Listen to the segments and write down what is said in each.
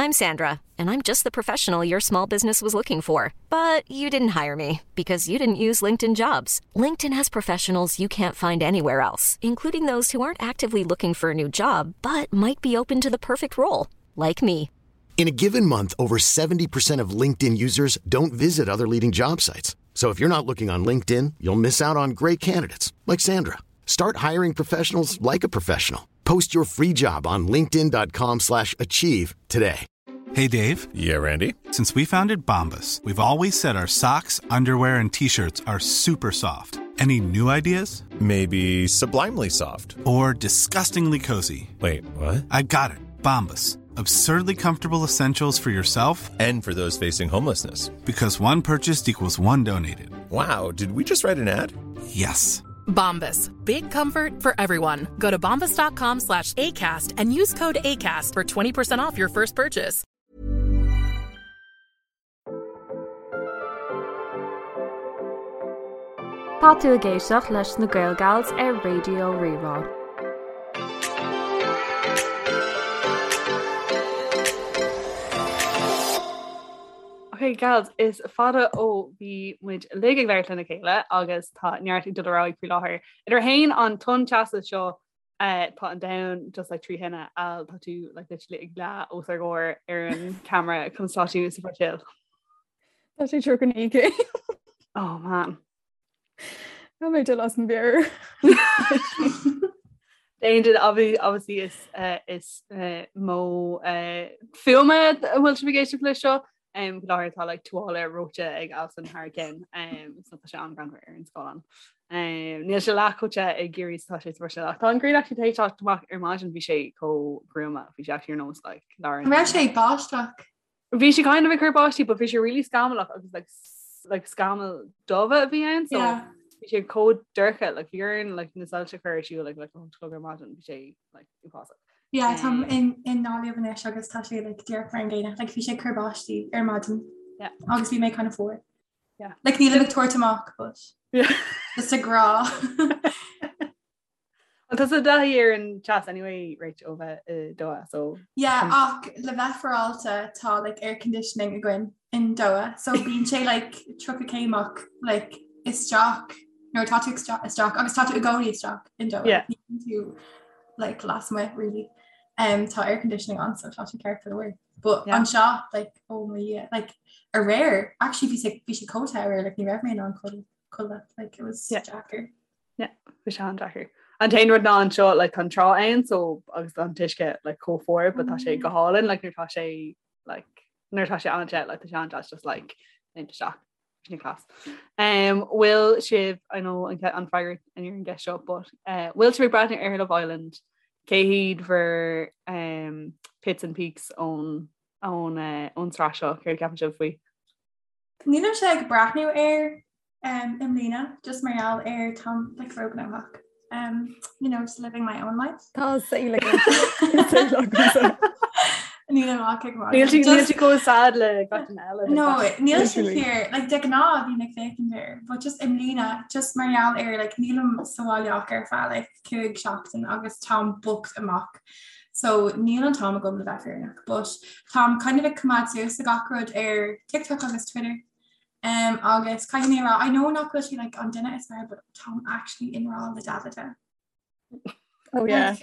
I'm Sandra, and I'm just the professional your small business was looking for. But you didn't hire me because you didn't use LinkedIn jobs. LinkedIn has professionals you can't find anywhere else, including those who aren't actively looking for a new job but might be open to the perfect role, like me. In a given month, over 70% of LinkedIn users don't visit other leading job sites. So if you're not looking on LinkedIn, you'll miss out on great candidates like Sandra. Start hiring professionals like a professional. Post your free job on linkedin.com/achieve slash achieve today. Hey Dave. Yeah, Randy. Since we founded Bombus, we've always said our socks, underwear, and t-shirts are super soft. Any new ideas? Maybe sublimely soft. Or disgustingly cozy. Wait, what? I got it. Bombus. Absurdly comfortable essentials for yourself and for those facing homelessness. Because one purchased equals one donated. Wow, did we just write an ad? Yes. Bombas. Big comfort for everyone. Go to bombas.com slash ACAST and use code ACAST for 20% off your first purchase. Tá tú ag éisteacht leis na Gael Gals ar Raidió Rí-Rá. Ok gals, is fada ó bhí muid uilig ag labhairt lena chéile agus tá neart ag dul ar aghaidh faoi láthair. Idir fhéin an tonn teasa seo eh, tá an domhan just like trí thine Al tá tú like literally ag leá os ár gcomhair ar an camera conas tá tú sa Bhruiséil. Tá sé 39 céim. Oh man. Tá mé dul as mo mheabhair. D'aon duine obviously is eh, is eh, modh eh, fuaime a bhfuil sibh ag éisteacht leis seo. Um, faoi láthair tá like tuáille reoite ag Alison thar a ceann um, so tá sé an-ghreannmhar ar an scáileán. Um, níl sé leath chomh te ag Ciarraí is atá sé sa Bhruiséil ach tá an ghrian actually tar éis teacht amach ar maidin bhí sé chomh gruama bhí sé actually ar nós like lár an raibh sé ag báisteach? Bhí sé kind of ag cur báistí but bhí sé really scamallach agus like like scamaill dubha a bhí ann so yeah. bhí sé chomh dorcha like bhí orainn like na soilse a chur ar siúl like like a chlog ar maidin bhí sé like uafásach. Yeah, táim in i nGaillimh anois agus tá sé like díreach mar an gcéanna like bhí sé ag cur báistí ar maidin yeah. agus bhí mé kind of fuar. Yeah. Like nílim ag tabhairt amach but yeah. just ag rá. Well tá tú i dtaithí ar an teas anyway Rach ó bheith i Doha so Yeah ach le bheith féaráilte tá like air conditioning againn in Doha so bíonn sé like 30 céim ach like isteach nuair atá tú isteach agus tá tú i gcónaí isteach in Doha Yeah. Ní bhíonn tú like lasmuigh really um, tá air conditioning ann so tá sé ceart go leor. But Yeah. anseo like oh my Dhia like aréir actually bhí sé bhí sé chomh te aréir like ní raibh mé in ann codladh like it was Yeah. deacair. Yeah, bhí sé an-deacair. An t-aon rud ná anseo like tá an trá ann so agus an t-uisce like chomh fuar but tá sé go hálainn like nuair tá sé like nuair tá sé an-te like tá sé an-deas just like léimt isteach sin class. Um, bhfuil sibh I know an an freagra ar an gceist seo but uh, bhfuil sibh ag breathnú ar Love Island cé hiad bhur um, pits and peaks ón ón uh, ón tsraith seo céard a cheapann sibh faoi? Nílimse ag breathnú air um, i mbliana, just mar gheall ar táim like róghnóthach. Um, you know, just living my own life. Tá saol agam. Saol agamsa. Nílim ach ag magadh. Níl sí níl Just- sí chomh sad le gach duine eile. No, níl sé Literally. fíor, like de ghnáth bhínn ag féachaint air, but just i mbliana, just mar gheall ar like nílim sa bhaile ach ar feadh like 5 seachtain agus táim booked amach. So níl an t-am agam le bheith fírinneach, but táim kind of ag coimeád suas le gach rud ar TikTok agus Twitter. Um, agus caithfidh mé a rá, I know nach bhfuil sé like an duine is fearr, but táim actually i ngrá le Davide. Oh yeah.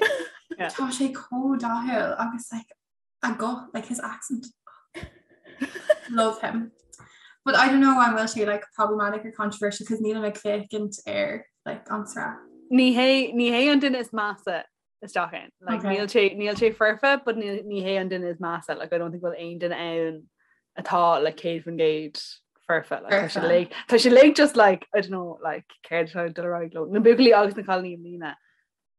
Yeah. Tá sé chomh dathúil agus like a guth, like his accent. Love him. But I don't know an bhfuil sé like problematic or controversial because nílim ag féachaint ar like an tsraith. Ní hé ní hé an duine is measa isteach ann. Like, Okay. níl sé níl sé foirfe, but ní ní hé an duine is measa. Like, I don't think bhfuil aon duine ann atá like 100% foirfe. Like, tá sé Foirfe. like tá sé like just like I don't know like céard atá ag dul ar aghaidh leo. Na buachaillí agus na cailíní i mbliana.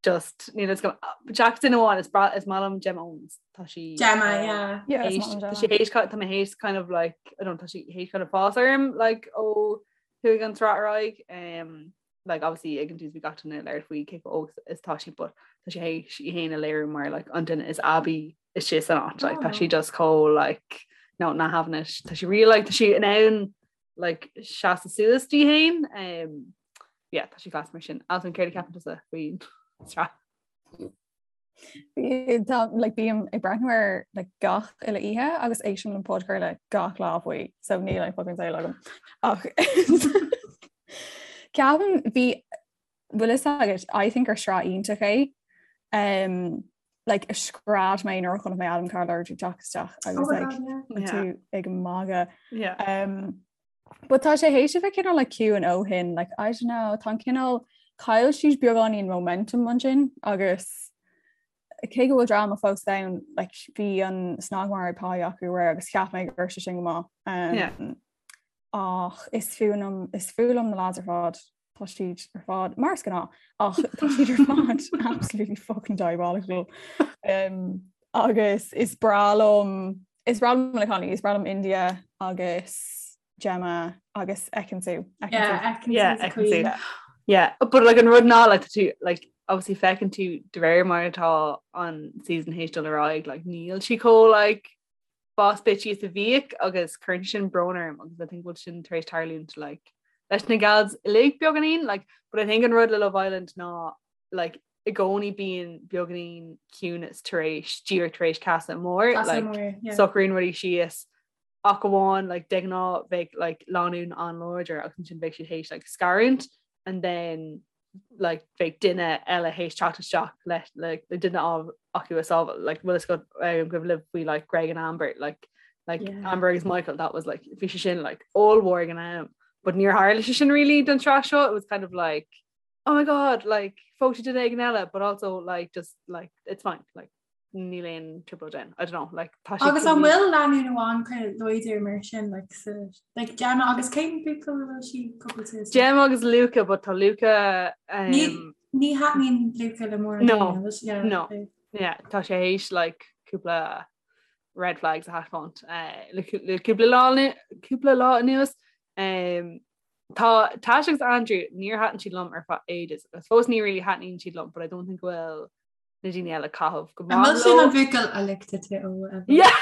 Just níl a fhios agam. Jackson amháin is bra is maith liom Gemma Owens. Tá sí Gemma, yeah. Yeah, is théis- maith liom tá Gemma. sí théis tá mé théis kind of like I don't know, tá sí théis kind of fás orm like ó chuaigh an tsraith ar aghaidh. Um, like obviously ag an tús bhí gach duine ag labhairt faoi cé chomh óg is tá sí but tá sí théis í féin a léiriú mar like an duine is aibí istigh san áit like tá sí Oh. just chomh like no not having it tá sí really like tá sí in ann like seasamh suas di féin um yeah tá sí class mar sin Alison céard a cheapann tusa faoin tsraith? Tá like, bím ag breathnú air like, gach uile oíche agus éistim le podchraoladh gach lá faoi, so níl aon fucking saol agam. Ach ceapaim bhí bhfuil fhios agat, I think gur sraith iontach é. Um, like, scread mé nuair a chonaic mé Adam Collard ag teacht isteach agus oh like, yeah. tú ag magadh. Yeah. Um, But tá sé théis a bheith cineál like ciúin ó shin, like I don't know, tá an cineál chaill siad beagáinín momentum ansin agus cé go bhfuil dráma fós ann, like bhí an snagmhargadh pá acu aréir agus cheap mé go raibh sé sin go maith. Um, Yeah. Ach is fuath liom is fuath liom na lads ar fad tá siad ar fad mar is gnáth ach tá siad ar fad absolutely fucking diabolical. Um, agus is breá liom is breá liom na cailíní, is breá liom India agus Gemma agus Ekin-Su. Yeah, Ekin-Su. Yeah, but like an rud ná like tú like obviously feiceann tú de réir mar atá an season théis dul ar aghaidh like níl sí chomh like boss bitchy is a bhíodh agus cuireann sin brón orm agus I think bhfuil sin tar éis tarlúint like leis na gals uilig beagáinín like but I think an rud le Love Island ná like i gcónaí bíonn beagáinín ciúnas tar éis díreach tar éis casadh mór like socraíonn rudaí síos ach amháin like de ghnáth bheadh like lánúin an-láidir agus ansin bheadh siad théis like scarúint and then like bheadh duine eile théis teacht isteach le like le duine acu a sábháil like bhfuil fhios agat um, go bhfuil faoi like Greg and Amber like like yeah. Amber agus Michael that was like bhí sé sin like ollmhór ag an am but níor tharla sé sin really don tsraith seo it was kind of like oh my god like phós sé duine éigin eile but also like just like it's fine like níl aon trioblóid ann I don't know like tá sé Agus an bhfuil lánúin amháin kind of láidir mar sin like sa like Gemma agus cén buachaill a bhfuil sí cúpla Gemma agus Luca but tá Luca um, Ní ní thaitníonn Luca le mórán No, yeah, no. Yeah, tá sé théis like cúpla red flags a thaispeáint uh, le le cúpla lá cúpla lá anuas um, Tá Tash agus Andrew níor thaitin siad liom ar feadh ages agus fós ní really thaitníonn siad liom but I don't think go bhfuil na daoine eile ag caitheamh go maith leo. An sin an buachaill a licked tú ó Yeah.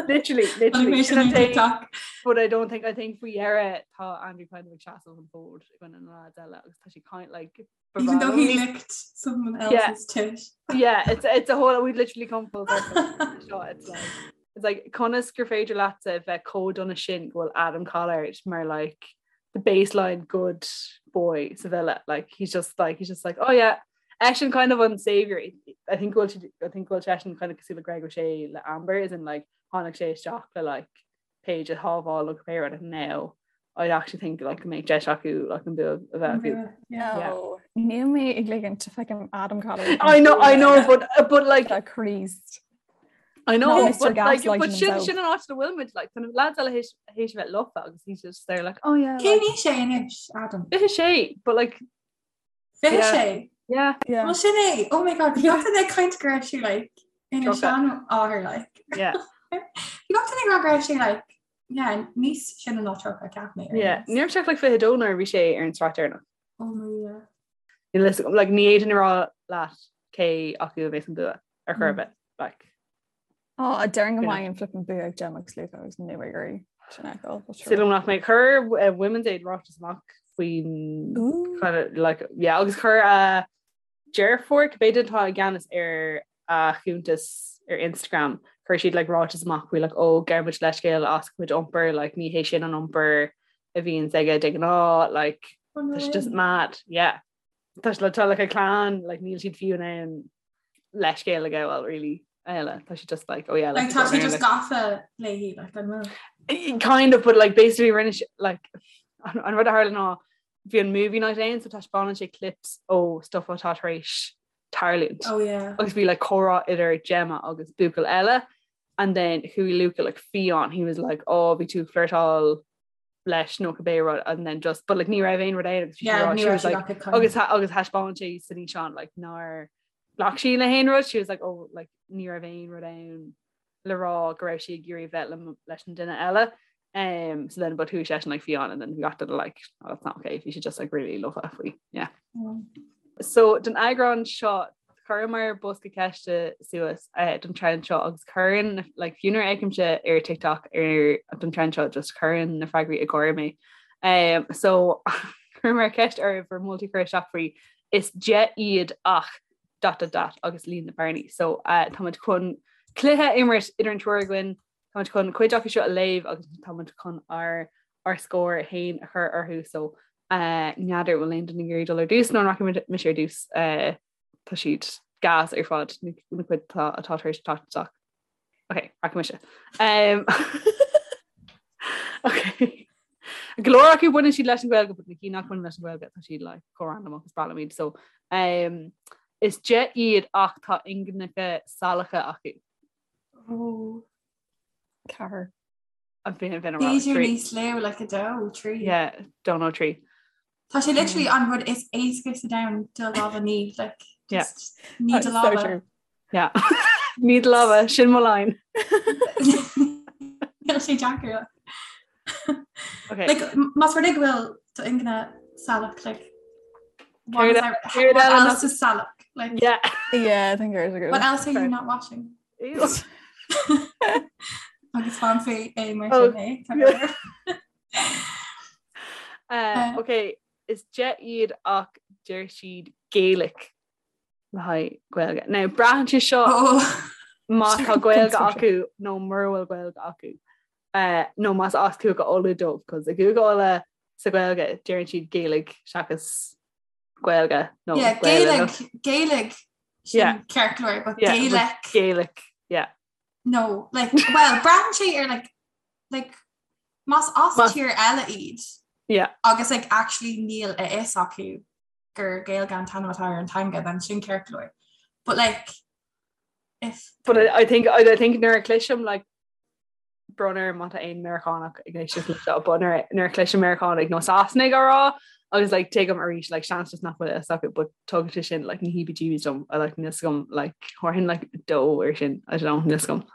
Literally, literally. Sin an TikTok. But I don't think I think faoi dheireadh tá Andrew kind of ag seasamh an fód i gcoinne na lads eile agus tá sé kind like Even though he licked someone else's yeah. tit. Yeah, it's it's a whole we've literally come full circle. Seo, it's like it's like conas gur féidir leatsa bheith chomh dona sin go bhfuil Adam Collard mar like the baseline good boy sa villa like he's just like he's just like oh yeah eisean kind of an savior I think go bhfuil I think go bhfuil seisean kind of cosúil le Greg O'Shea le Amber is in like tháinig sé isteach le like Paige a shábháil ó cibé rud and now I actually think like go mbeidh deis acu like an bua a bheith acu. Yeah. Níl mé ag ligint feicim Adam Collard. I know I know but but like Christ. I know but like but sin sin an áit a bhfuil muid like kind of lads eile théis théis bheith lofa agus he's just there like oh yeah Cén aois é anois Adam? 26 but like 26 yeah yeah Well sin é oh my god bhí gach duine ag caint go raibh sé like ina seanathair like yeah Bhí gach duine ag rá go raibh sé like yeah níos sine ná 30 ceap mé yeah ní raibh sé like 22 nuair a bhí sé ar an tsraith deireanach Oh my yeah Níl a fhios agam like ní fhéadfainn a rá leat cé acu a bheas an bua ar chor ar bith like. Á, déarfainn go mbeidh an flippin bua ag Gemma agus Luca agus níl mé ag iarraidh sin a fheiceáil, but sure. Súil agam nach mbeidh. Chuir eh, Women's Aid ráiteas amach faoin Ooh. kind of, like, yeah, agus chuir a deirfiúr, cibé duine atá i gceannas ar a chuntas ar Instagram, chuir siad like ráiteas amach faoi like, ó gabhaimid leithscéal as a chuid iompair, like, ní hé sin an iompar a bhíonns aige de ghnáth, like, Oh, no tá sé way. just mad, yeah. Tá sé tá like a clann, like níl siad fiú in ann leithscéal a ghabháil really eile tá sé just like oh yeah like tá sé just gafa léi like an bhfuil kind of but like basically rinne sé like an, an rud a tharla ná bhí an movie night ann so taispeánann sé clips ó stuff atá tar éis tarlúint oh yeah agus bhí like comhrá idir Gemma agus buachaill eile and then chuaigh Luca like fiáin he was like oh bhí tú ag flirtáil leis nó cibé rud and then just but like ní raibh aon rud ann agus Yeah, ní she raibh was siad like ach ag caint. agus agus thaispeáin sé san fhíseán like nár ghlac sí le haon rud she was like oh like ní raibh aon rud ann le rá go raibh sí ag iarraidh bheith le leis an duine eile um so then but chuaigh seisean like fiáin and then we got to the like oh, that's not okay bhí sé just like really lofa faoi yeah So don eagrán seo chuireamar bosca ceiste suas eh, don trend seo agus cuireann like, fiú nuair a fheicimse ar TikTok ar don trend seo just cuireann na freagraí ag gáire mé. Um, so chuireamar ceist oraibh bhur moltaí a chur isteach faoi is 10 iad ach. Dot dot dot agus líon na bearnaí. So uh, táimid chun cluiche a imirt idir an triúr againn, táimid chun cuid acu seo a léamh agus táimid chun ár ár scór féin a chur orthu. So uh, n'fheadar bhfuil aon duine ag iarraidh dul ar dtús nó an rachaidh mise ar dtús uh, tá siad gas ar fad na na cuid atá atá tar éis teacht isteach. Ok, rachaidh mise. Um, ok. Go leor acu baineann siad leis an Ghaeilge, but na cinn nach mbaineann leis an Ghaeilge tá siad like, chomh random agus is breá liom iad. So, um, is de iad ach tá ingineacha salacha acu. Oh. Ceathair. A bhí bhí B'fhéidir níos lú like a dó, trí. Yeah, dó nó trí. Tá sé literally an rud is éasca sa domhan do lámha a ní like Yeah. just ní do So lámha. true. Yeah. Ní do lámha sin mo line. Níl sé deacair. Okay. Like m- más rud é go bhfuil do ingne salach like what Céard is e- that- céard what eile else nach- is salach? Like Yeah. Yeah, I think there's a good what else are you Fair. not washing? Ew. Agus fan fé é mar Oh, sin é. Tá yeah. go leor. Uh, ok, is de iad ach deir siad Gaelic le haghaidh Gaeilge. Now braitheann sé seo Oh. má tá Gaeilge acu nó mura bhfuil Gaeilge acu. Uh, nó más as Cúige Uladh dóibh, cos i gCúige Uladh sa Ghaeilge deireann siad Gaeilge seachas Gaeilge nó Yeah, Gaeilge nó- Gaelic, Gaelic sin Yeah. ceart go leor, but Yeah, but Gaelic Gaelic, yeah. No, like, well, braitheann sé ar like, like, más as Más- tír eile iad Yeah. agus like, actually níl a fhios acu gur Gaeilge an t-ainm atá ar an teanga, then sin ceart go leor. But like, if But I, I think I, I think nuair a chloisim like brón orm má tá aon Meiriceánach ag éisteacht leis seo, but nuair nuair a chloisim Meiriceánaigh nó Sasanaigh á rá agus like tuigim arís like seans just nach bhfuil a fhios acu but tugann sé sin like na heebie-jeebies dom I like níl a fhios agam like thabharfainn like dó ar sin I don't know níl a fhios agam.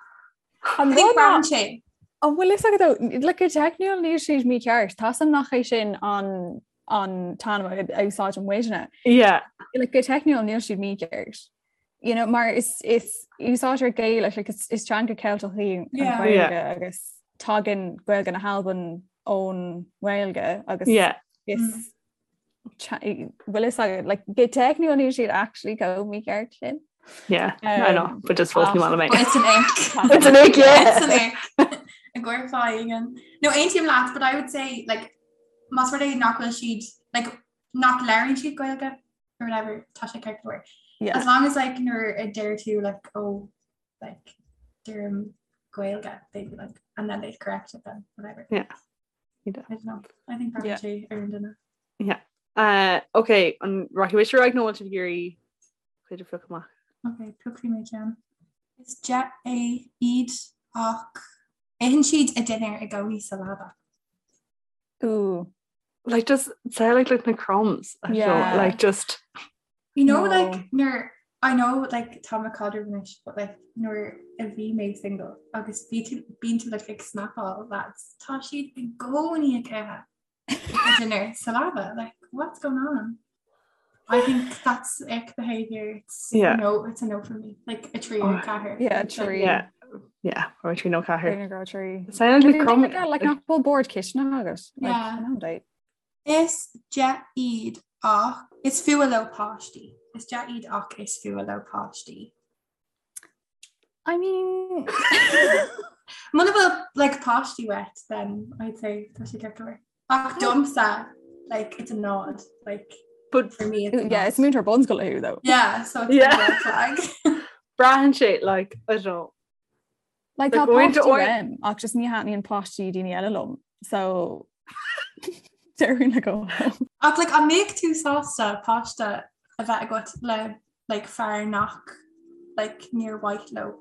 An I think rud ná- braitheann sé An bhfuil fhios agat though, like go teicniúil níl siad mícheart, Tá a fhios agam nach é sin an an t-ainm a úsáideann muidne. Yeah. Like go teicniúil níl siad mícheart. You know, mar is is úsáidtear Gaelic like is is teanga Ceilteach í an Yeah. Ghaeilge Yeah. agus tagann Gaeilge na hAlban ón nGaeilge agus Yeah. is bhfuil fhios agat like go teicniúil níl siad actually chomh mícheart sin. Yeah, I know, Um, but just fós ní maith liom é. But it's an ick. It's an ick, yeah. It's an ick. A gcuirfá No aontaím leat, but I would say like más rud é nach bhfuil siad like nach labhraíonn siad Gaeilge or whatever tá sé ceart go leor. Yeah. As long as like nuair a deir tú like oh like deirim Gaeilge they'd be like and then they'd correct it then whatever. Yeah. I don't know. I think Yeah. braitheann sé ar an duine. Yeah. Uh, okay, an rachaidh mise ar aghaidh nó bhfuil sibh ag iarraidh cuid a phiocadh amach? Okay, piocfaidh mé ceann. Is de é iad ach itheann siad a dinnéar i gcónaí sa leaba. Ooh. Like just say like like na crumbs. I don't know, Yeah. like just You know No. like nuair I know like tá mé i gcaidreamh anois but like nuair a bhí mé single agus bhí tú bíonn tú like ag snapáil lads tá siad i gcónaí ag ithe a dinner sa leaba like what's going on? I think that's ick behavior. It's Yeah. no it's a no for me. Like a trí or Oh, ceathair. Yeah, Like, trí. yeah. Yeah, or trí nó ceathair. Trí nó trí. Sound like crumb. Like nach bhfuil bord cistine agat. Like, Yeah. an date. Is de iad ach is fuath leo páistí. Is de iad ach is fuath leo páistí. I mean Muna bhfuil like páistí uait then I'd say tá sé ceart go leor. Ach domsa like it's a nod like But for me it's a yeah, nod. it's múinteoir bunscoile thú though. Yeah, so it's Yeah. a red flag. braitheann sé like I don't know. Like Like, tá going to páistí or- uaim ach just ní thaitníonn páistí daoine eile liom. So déarfainn le go. Ach like an mbeadh tú sásta páiste a bheith agat le like fear nach like níor mhaith leo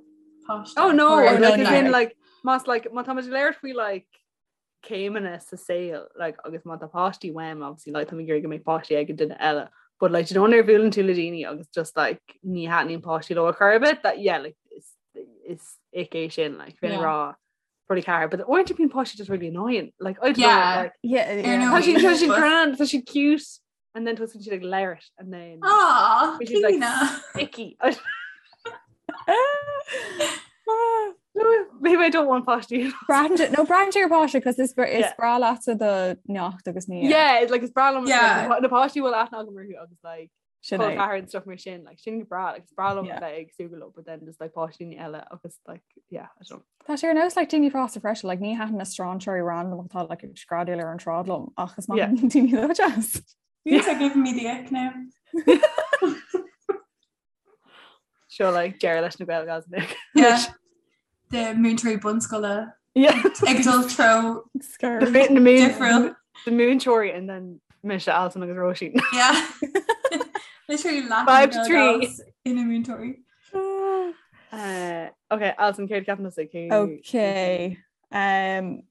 páiste. Oh no, Or- Oh, no, like no. as in like más like má tá muid ag labhairt faoi like céimeanna sa saol like agus má tá páistí uaim obviously like tá mé ag iarraidh go mbeidh páistí ag an duine eile but like do you know nuair a bhuaileann tú le daoine agus just like ní thaitníonn páistí leo ar chor ar bith that yeah like is is ick é sin like bheinn ag Yeah. rá probably ceathair but uaireanta bíonn páistí just really annoying like I don't know Yeah. like Yeah, Ar yeah. ndóigh. tá siad tá siad But- grand tá siad cute and then tosaíonn siad ag labhairt and then Aw, Which is, like, Clíona. icky No, maybe I don't want páistí Braitheann sé- no braitheann sé ar páiste cos is is Yeah. breá leatsa do neacht agus ní. Yeah, it's like is breá liom Yeah. like, na páistí bhfuil aithne agam orthu agus like Sin é. ceathair and stuff mar sin like sin go breá like is breá liom Yeah. bheith ag súgradh leo but then just like páistí eile agus like yeah I don't know. Tá sé ar nós like daoine fásta freisin like ní thaitin na strainséirí random atá like ag screadaíl ar an tsráid liom ach is maith Yeah. liom daoine atá deas. You're giving me the ick now. Seo like deireadh leis na Gael Gals Yeah. The múinteoirí bunscoile Yeah. ag dul treo Scared. The na moon difriúil. the múinteoirí and then mise Alison agus Róisín. Yeah. Literally laughing 5 to 3. ina múinteoirí. Uh, okay, Alison céard ceapann tusa cé Okay. Um,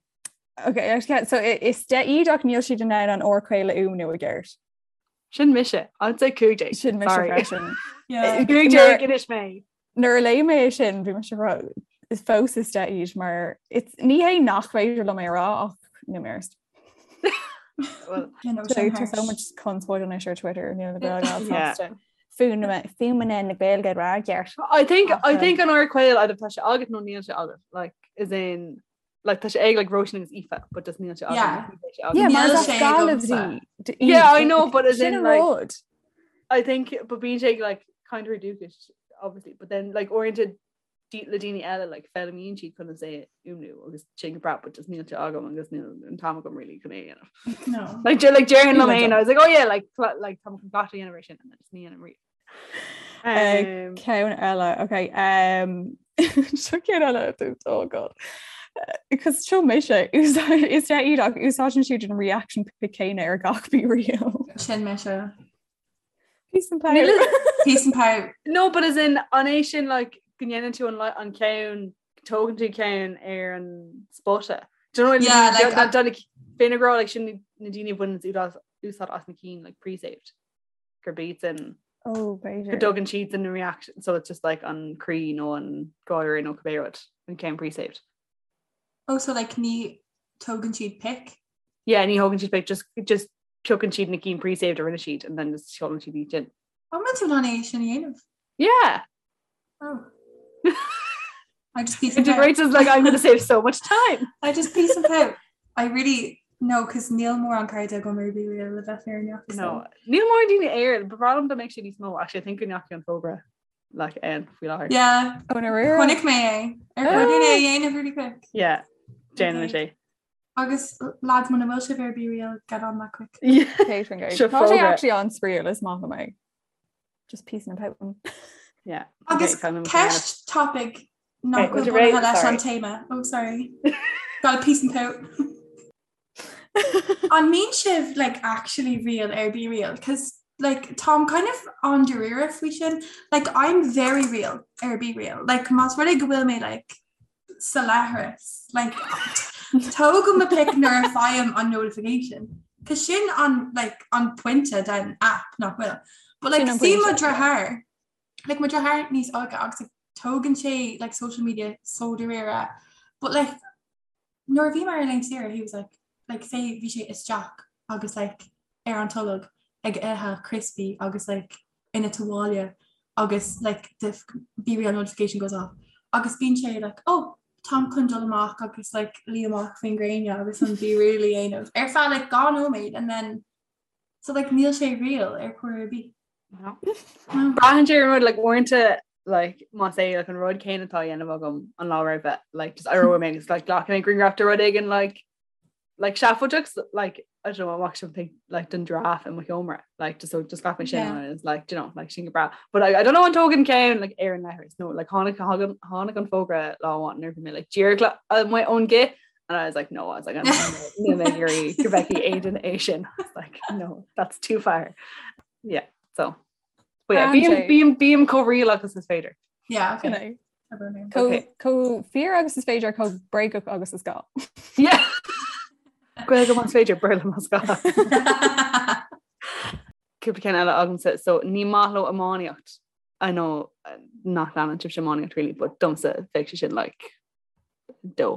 okay, actually, so is de iad ach níl siad in ann an R caol a fhuaimniú i gceart. Sin mise, I'd say 15. Sin mise Sorry. freisin. Yeah. 15 anois mé. Nuair a léigh mé é sin bhí mise rá is fós is de iad mar it's ní hé nach féidir liom é rá ach níl mé arst. Well, You know, So sin tá harsh. so much conspóid anois ar Twitter níl na Gael Yeah. sásta. Fuaimeanna na Gaeilge rá gceart. I think I Ach, think an R caol either tá sé agat nó níl sé agat like is in like tá sé ag like Róisín agus Aoife but just níl sé agat. Yeah. Níl sé agat. Yeah, mar Níl is sé Gaillimh agamsa. di- Yeah, I iad. know, but as Sin in, an like- rud. I think but bíonn sé like kind of dúchais obviously but then like oriented le daoine eile like foghlaimíonn siad chun é a fhuaimniú agus sin go breá but just níl sé agam agus níl an t-am agam really chun é a dhéanamh. No. Like de- like déarfainn liom Níl féin, agam. I was like oh yeah like cla- like tá chun gach a dhéanamh ar sin and then just ní dhéanaim riamh. Uh, Um, Ceann eile, okay. Um, seo ceann eile oh god. Because seo mise is de iad ach úsáideann siad an reaction pic céanna ar gach BeReal. Sin mise. Peace and power. Níl- Peace and power. No, but as in an é sin like go ndéanann tú an li- an ceann tógann tú ceann ar an spota. Do you know what I mean? Yeah, like, Done- done Féna gra like sin na daoine bhain úsáid úsáid as na cinn like pre-saved. Gur beats in Oh, go b'fhéidir. dtugann siad in reaction so it's just like an croí nó an gáire nó cibé rud an ceann pre-saved. Oh, so like ní tógann siad pic. Yeah, ní thógann siad pic just just piocann siad na cinn pre-saved a rinne siad and then just seolann siad iad sin. An bhfuil tú in ann é sin a dhéanamh? Yeah. Oh. I just peace and power. Integrates is like I'm gonna save so much time. I just peace and power. I really no, cos níl mórán cairde agam ar BeReal le bheith fírinneach. so. No, níl mórán daoine air, ba bhreá liom dá mbeadh sé níos mó actually I think go ndeachaigh an fógra like ann faoi láthair. Yeah. Oh, na rira. Chonaic mé é. Ar Ah. chóir dúinn é a dhéanamh really quick. Yeah, déanann Okay. sé. Agus lads muna bhfuil sibh ar BeReal, get on that quick. Yeah. Catering guide. Seo Tá sé fógra. actually an-spraíúil is maith liom é. Just peace and power. Yeah. Agus Okay, kind of ceist topic nach Okay, bhfuil would you rate- bunaithe leis an sorry. téama. Oh, sorry. Got a peace and pout. An mbíonn sibh like actually real ar BeReal? Cause like táim kind of an-dáiríre faoi sin. Like I'm very real ar BeReal. Like más rud é go bhfuil mé like sa leithreas. Like tógaim mo pic nuair a fhaighim an notification. Cause sin an like an pointe den app nach bhfuil. But like Sin an see mo pointe, yeah. deartháir. Like mo deartháir níos óige agus like, tógann sé like social media so dáiríre. But like nuair a bhí mé ar laethanta saoire, he was like like say bhí sé isteach agus like ar an tolg ag ithe crispy agus like ina tuáille agus like the BeReal notification goes off. Agus bíonn sé like oh táim chun dul amach agus like luí amach faoin ngréine agus an BeReal a dhéanamh. Ar feadh like dhá nóiméad and then so like níl sé real ar chor ar bith. No. No. Braitheann sé ar an rud like uaireanta like más é like an rud céanna atá á dhéanamh agam an lá roimhe like just éireoidh mé agus like glacfaidh mé grianghraf de rud éigin like like seafóideach like I don't know I'm actually think like den giraffe i mo sheomra like just so just glacfaidh mé sin Yeah. and it's like do you know like sin go breá but like, I don't know an dtógann ceann like ar an leithreas no like tháinig tháinig tháinig an fógra lá amháin nuair a bhí mé like díreach le amuigh ón gcith and I was like no I was like I'm níl mé ag iarraidh go bhfeicfidh Aidan é sin I was like no that's too far yeah so but yeah Braitheann bím sé. bím bím chomh real agus is féidir Yeah, okay. Sin é. Abair mé. Chomh Okay. chomh fíor agus is féidir chomh bréagach agus is gá. yeah Gaeilge más féidir Béarla más gá. Cúpla ceann eile agamsa so ní maith leo iománaíocht I know uh, nach leanann sibhse iománaíocht really but domsa bheadh sé sin like dó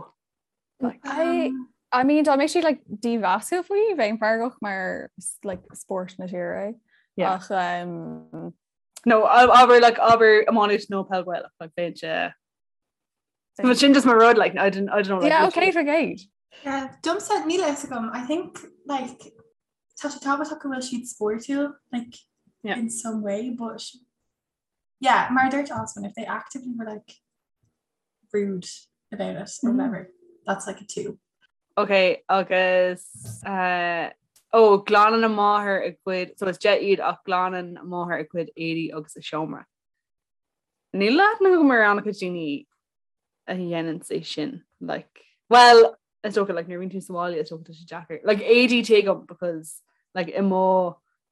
like I Um, I mean dá mbeadh siad like dímheasúil faoi bheinn feargach mar like spórt na tíre é. Yeah. Ach um, No abair like abair iománaíocht nó peil Ghaelach like bheinn sé But sin just mar rud like I didn't I don't know like yeah, literally- okay for gate. Yeah, domsa níl a fhios agam. I think like tá sé tábhachtach go bhfuil siad spórtúil like yeah. in some way but yeah mar dúirt Osman if they actively were like rude about it or mm. whatever that's like a 2. Ok agus uh, ó glanann a máthair a gcuid so is 10 iad ach glanann a máthair a cuid éadaí agus a seomra. Níl aithne agam ar an-chuid daoine a dhéanann é sin like well is dócha like nuair a bhíonn tú sa bhaile is dócha tá sé deacair like éadaí tuigim because like i mo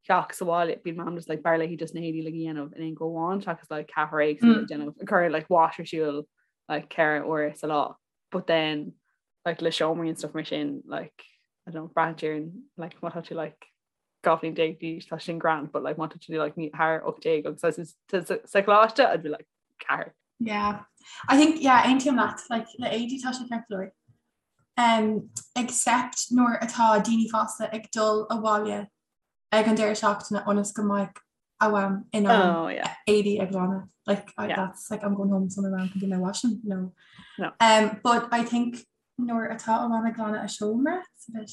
theach sa bhaile bíonn mam just like b'fhearr léi just na héadaí like a dhéanamh in aon go amháin seachas like ceathrar éagsúil mm. déanamh ag cur like wash ar siúl like ceithre uair sa lá but then like le seomraí and stuff mar sin like I don't know braitheann ar like má tá tú like 12 bhliain d'aois tá sin grand but like má tá tú like ní thar 18 agus sa choláiste I'd be like ceathair. Yeah. I think yeah aontaím leat like le éadaí tá sé ceart go leor. Um, except nuair atá daoine fásta ag dul abhaile ag an deireadh seachtaine ionas go mbeidh a mham in ann oh, yeah. éadaí a ghlanadh. Like I, yeah. that's like I'm going home so my mom can do my washing. No. No. Um, but I think nuair atá a mham ag glanadh a seomra, it's a bit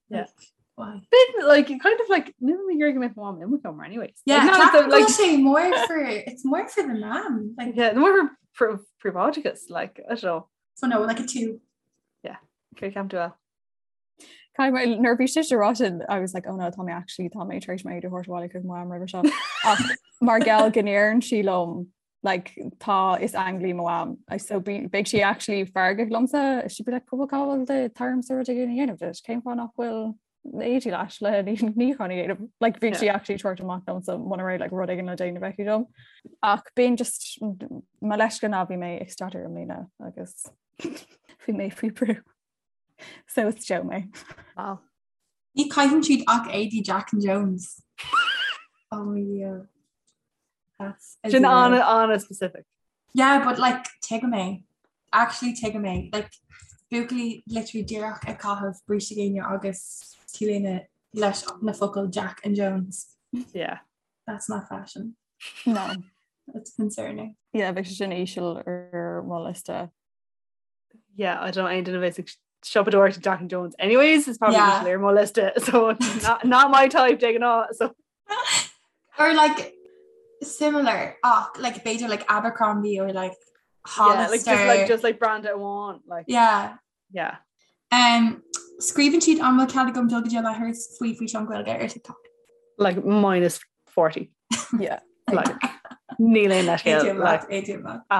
Yeah. Why? Bit like kind of like níl mé ag iarraidh go mbeadh mom i mo sheomra anyways. Yeah, like, not the, like sé more for it's more for the man. Like yeah, more for príobháideachas like I don't know. So no, like a 2. Yeah. Okay, ceapann tú well. Kai nuair bhí sé rá sin I was like oh no tá mé actually tá mé tar éis m'éadaí a thabhairt abhaile chuig mo mham roimhe seo. Ach mar gheall go ndeireann sí liom like tá is ainglí mo mham I so be beidh sí actually feargach liomsa she'd be like cúpla cá bhfuil do t'ormsa rud éigin a dhéanamh duit cén fáth nach bhfuil éadaí leis le níochán a dhéanamh like bhí sí actually ag tabhairt amach liomsa muna raibh like rud éigin le déanamh aici dom ach bíonn just mo leithscéal ná bhí mé ag staidéar i mbliana agus bhí mé faoi brú so is Joe mé. Wow. Ní chaitheann siad ach éadaí Jack and Jones. Oh yeah. That's a Sin an an-specific. Yeah, but like tuigim é. Actually tuigim é. Like buachaillí literally díreach ag caitheamh bríste géine agus t-léine leis na focail Jack and Jones. Yeah. That's not fashion. No. That's concerning. Yeah, bheadh sé sin íseal ar mo liosta. Yeah, I don't aon duine a bheas ag siopadóireacht Jack and Jones. Anyways, it's probably yeah. ar mo liosta, so not, not my type de ghnáth. So. Or like similar ach like b'fhéidir like Abercrombie or like Hollister. Yeah, like just like just like brand amháin like yeah. Yeah. Um, scríobhann siad an bhfuil cead agam dul go dtí an leithreas faoi físeán Gaeilge ar TikTok. Like minus 40. Yeah. Like níl aon leithscéal like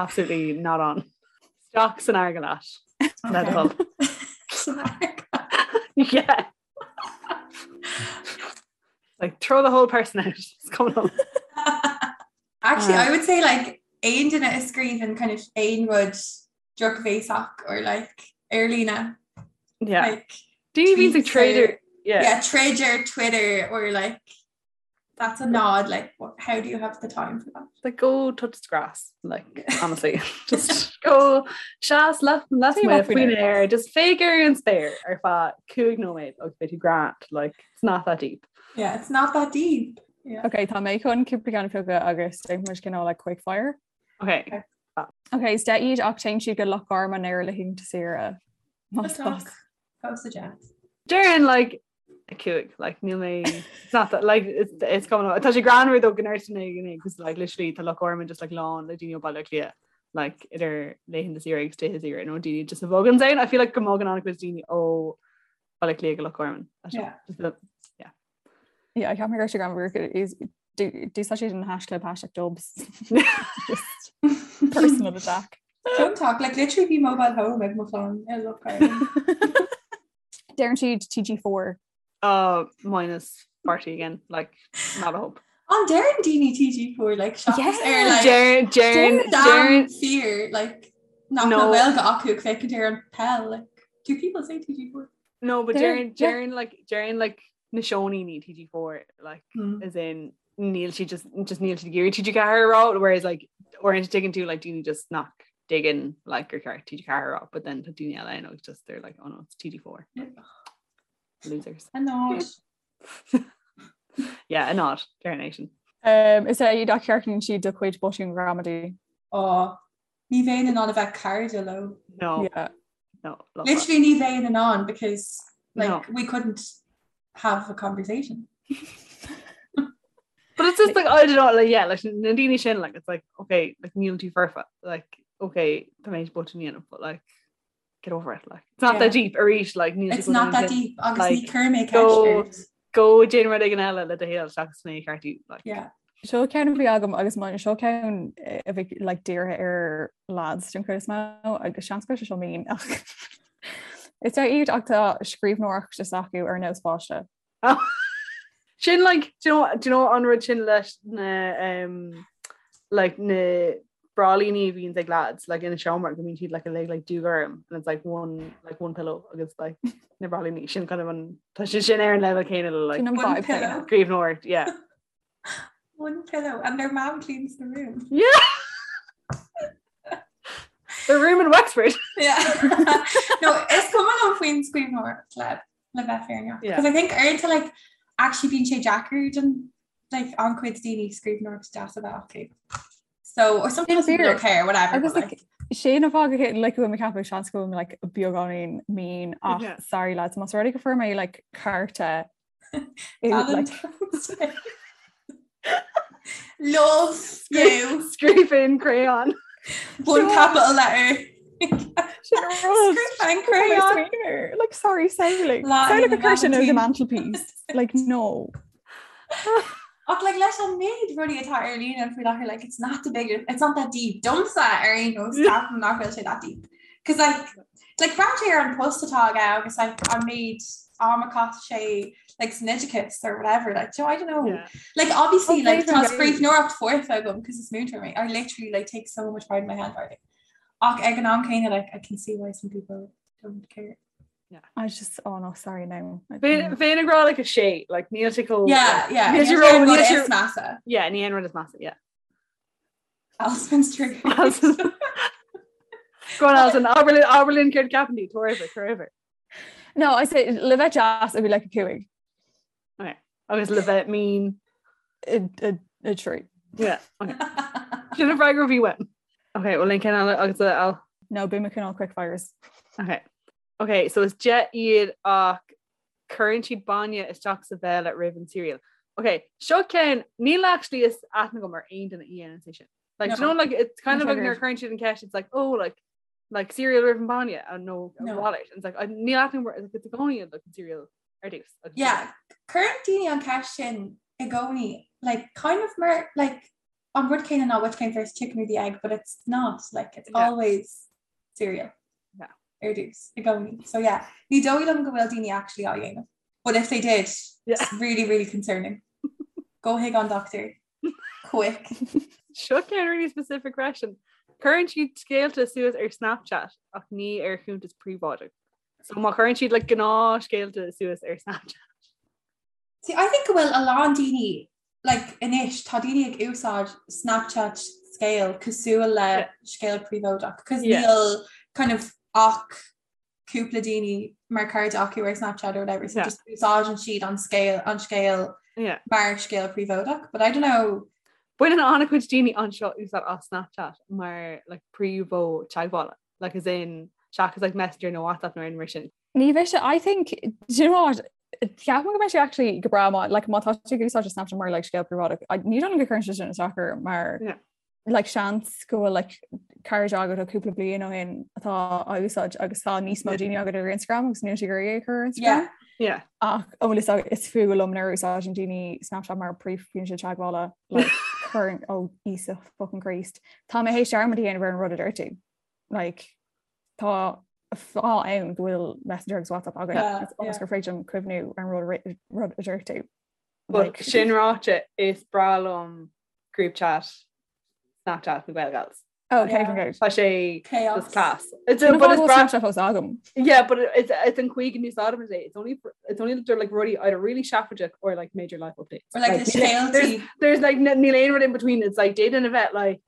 absolutely not on. Isteach san fharraige leat. Le do thoil. Yeah. Like throw the whole person out. It's coming on. Actually, I would say like aon duine a scríobhann kind of aon rud drochbhéasach or like ar líne. Yeah. Like Daoine bhíonn ag troid yeah. Yeah, troid ar Twitter or like that's a nod like what, how do you have the time for that? Like go touch the grass like honestly just go seas left left faoin aer just féach ar an spéir ar feadh 5 nóiméad agus beidh tú grand like it's not that deep. Yeah, it's not that deep. Yeah. Okay, tá mé chun cúpla ceann a phiocadh agus déanfaidh muid cineál like quick fire. Okay. Okay, is 10 iad ach téann siad go Loch Garman ar laethanta saoire. Más Fuck. Fós a deich. Déarfainn like a cúig like níl mé it's not that like it's, it's coming up. Tá sé greannmhar though go ndeireann duine because like literally tá Loch Garman just like lán le daoine ó Baile Átha Cliath like idir laethanta saoire agus laetha saoire nó daoine just a bhogann ann. I feel like go mbogann an-chuid daoine ó Baile Átha Cliath go Loch Garman. Yeah. Just the, yeah. Yeah, I can't remember Instagram is D'úsáid siad an haischlib hashtag dubs. Just personal attack. Don't talk like literally bhí mobile home ag mo chlann i Loch Garman. Deireann siad TG4. Uh, minus 40 again, like not a hope. An deireann daoine TG4 like seachas ar like Deireann deireann deireann fear like nach No. bhfuil Gaeilge acu ag féachaint ar an peil like do people say TG4? No, but Deireann- deireann deireann like deireann like na seoiníní TG4 like Mm. as in níl sí just just níl siad ag iarraidh TG4 a rá whereas like uaireanta tuigeann tú like daoine just nach dtuigeann like gur ceart TG4 a rá but then tá daoine eile ann agus just they're like oh no it's TG4 losers A nod. yeah a nod deireann é sin Um, is 10 iad ach ceartaíonn siad do chuid botún gramadaí. Ó, ní bheinn in ann a bheith cairde leo. no Yeah. no love that. Literally ní bheinn in ann because like No. we couldn't have a conversation. But it's just like I don't know like yeah like na daoine sin like it's like okay like níl tú foirfe like okay tá mé botún a dhéanamh but like get over it like it's not yeah. that deep arís like níl It's not that deep agus like, ní chuir mé ceist go déan rud éigin eile le do shaol seachas mé a cheartú like yeah. Seo ceann a bhí agam agus mar seo ceann eh, a bhí like dírithe ar lads den chuid is mó agus seans go bhfuil sé seo mean ach Is ar iad ach tá scríbhneoireacht is acu ar nós páiste. Sin like do you know, do you know an rud sin leis na um, like na brálíní a bhíonn ag lads like ina seomra go mbíonn siad like uilig like dúghorm and it's like one like one pillow agus like na brálíní sin kind of an tá sé sin ar an level céanna le like Sin an One vibe pillow. céanna. scríbhneoireacht yeah. One pillow and their mom cleans the room. Yeah. The room in Wexford. Yeah. No, is cuma liom faoin scríbhneoireacht le le bheith fírinneach. Yeah. Because I think uaireanta like actually bíonn sé deacair don like an-chuid daoine scríbhneoireacht deas a bheith acu. So or sometimes people don't care, whatever. Agus but, like, sé na fáth go like go bhfuil mé ag ceapadh seans go bhfuil mé like beagáinín mean ach Yeah. sorry lads más rud é go fuair mé like cárta i- like, Valentine's Day. Love you. Scríofa in crayon. One capital letter. Sin an rud. Scríofa in Tá mé crayon. smaoineamh. Like sorry samhlaigh. Lá Samhlaigh na go cuir sin ar the Vailintín. mantelpiece. Like no. Ach like leis an méid rudaí atá ar líne faoi láthair like it's not the big it's not that deep. Domsa ar aon nós ceapaim nach bhfuil sé that deep. Cos like like breathnaigh ar an post atá aige agus like an méid am a chaith sé like san oideachas or whatever like so I don't know. Yeah. Like obviously Okay, like tá fair scríbhneoireacht foirfe agam cos is múinteoir mé. I literally like take so much pride in my handwriting. Ach ag an am céanna like I can see why some people don't care. I just oh no sorry no. Bheinn ag rá like a sé like níl sé chomh Yeah, yeah. Níl sé Níl ró- sé rud níl sé- is measa. Yeah, ní aon rud is measa, yeah. Alston's trigger. Alston's- Go on Alison, abair linn abair linn céard ceapann tú, tabhair uimhir, tabhair uimhir. No, I say le bheith deas it'd be like a cúig. Okay. Agus le bheith mean. A, a, a trí. Yeah, okay. Sin an freagra a bhí uaim. Okay, well linn ceann eile agus a Al. No, bím ag cineál quick fires. Okay. Okay, so is deich iad ach cuireann siad bainne isteach sa bhéal roimh an cereal. Okay, seo ceann níl actually is aithne agam ar aon duine a dhéanann sé sin. Like, do you No. know, like it's kind of Not like nuair triggered. a cuireann siad an ceist, it's like, oh, like like cereal roimh an bainne and no No. wallet. And it's like, I níl aithne agam ar like, it's i gcónaí like an cereal ar dtús. Agus Yeah, cuireann daoine an ceist sin i gcónaí, like kind of mar like an rud céanna ná which came first, chicken or the egg, but it's not like it's Yeah. always cereal. Yeah. Ar dtús i gcónaí. So yeah, ní dóigh liom go bhfuil daoine actually á dhéanamh. But if they did, Yeah. it's really, really concerning. Go chuig an doctor. Quick. Seo ceann really specific question. Cuireann siad scéalta suas ar Snapchat ach ní ar chuntas príobháideach. So má chuireann siad like gnáthscéalta suas ar Snapchat. See, I think go bhfuil a lán daoine like anois tá daoine ag úsáid Snapchat scéal cosúil le Yeah. scéal príobháideach cos Yeah. níl kind of ach cúpla daoine mar cairde acu ar Snapchat or whatever so Yeah. just úsáideann siad an scéal an scéal Yeah. mar scéal príobháideach but I don't know Baineann an-chuid daoine anseo úsáid as Snapchat mar like príomh-mhodh teagmhála, like as in seachas like Messenger nó WhatsApp nó aon mar sin. Ní bheidh sé I think do you know what Ceapaim go mbeidh sé actually go breá má like má tá tú ag úsáid Snapchat mar like scéal príobháideach I- ní dóigh liom go gcuireann sé sin isteach ort mar Yeah. like seans go bhfuil like cairde agat ó cúpla bliain ó shin atá á úsáid agus tá níos mó daoine agat ar Instagram agus níl siad ag iarraidh é a chur ar Instagram. yeah Yeah. Ach an bhfuil fhios agat is fuath liom nuair a úsáideann daoine Snapchat mar príomhfhoinse teagmhála like cuireann ó Íosa fucking Christ. Tá mé théis dearmad a dhéanamh ar an rud a dúirt tú. Like tá fáth ann go bhfuil Messenger agus WhatsApp againn Yeah, It's ionas yeah. gur féidir liom cuimhniú ar an rud a ri- rud a dúirt tú. But Like- sin ráite is breá liom group chat Snapchat na Gaelgals. Oh, okay, Yeah. yeah. good. Tá sé chaos just class. It's Sin a, but it's bhfuil breá Snapchat fós agam. Yeah, but it- it's it's an chaoi go n-úsáidim é. It's only for, it's only they're like rudaí either really seafóideach or like major life updates. or like the níl- there's scéaltaí there's like n- níl aon rud in between. It's like d'fhéadfainn a bheith like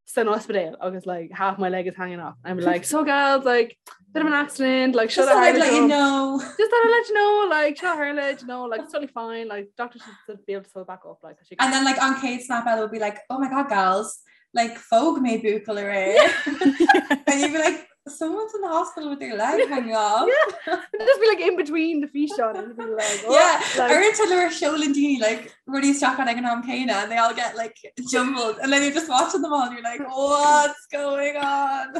san ospidéal agus like half my leg is hanging off. I'm like so gals like bit of an accident like just should thought I I'd let you know Just thought I'd let you know like seo tharla you know like it's totally fine like doctor should be able to sew it back up like she and then like on chéad snap eile will be like oh my god gals like phóg mé buachaill aréir and you'd be like Someone's in the hospital with their leg hanging off. Yeah. Just be like in between the físeán and be like, oh, yeah, like, Uaireanta nuair a sheolann daoine like rudaí isteach ag an am céanna and they all get like jumbled and then you're just watching them all and you're like what's going on?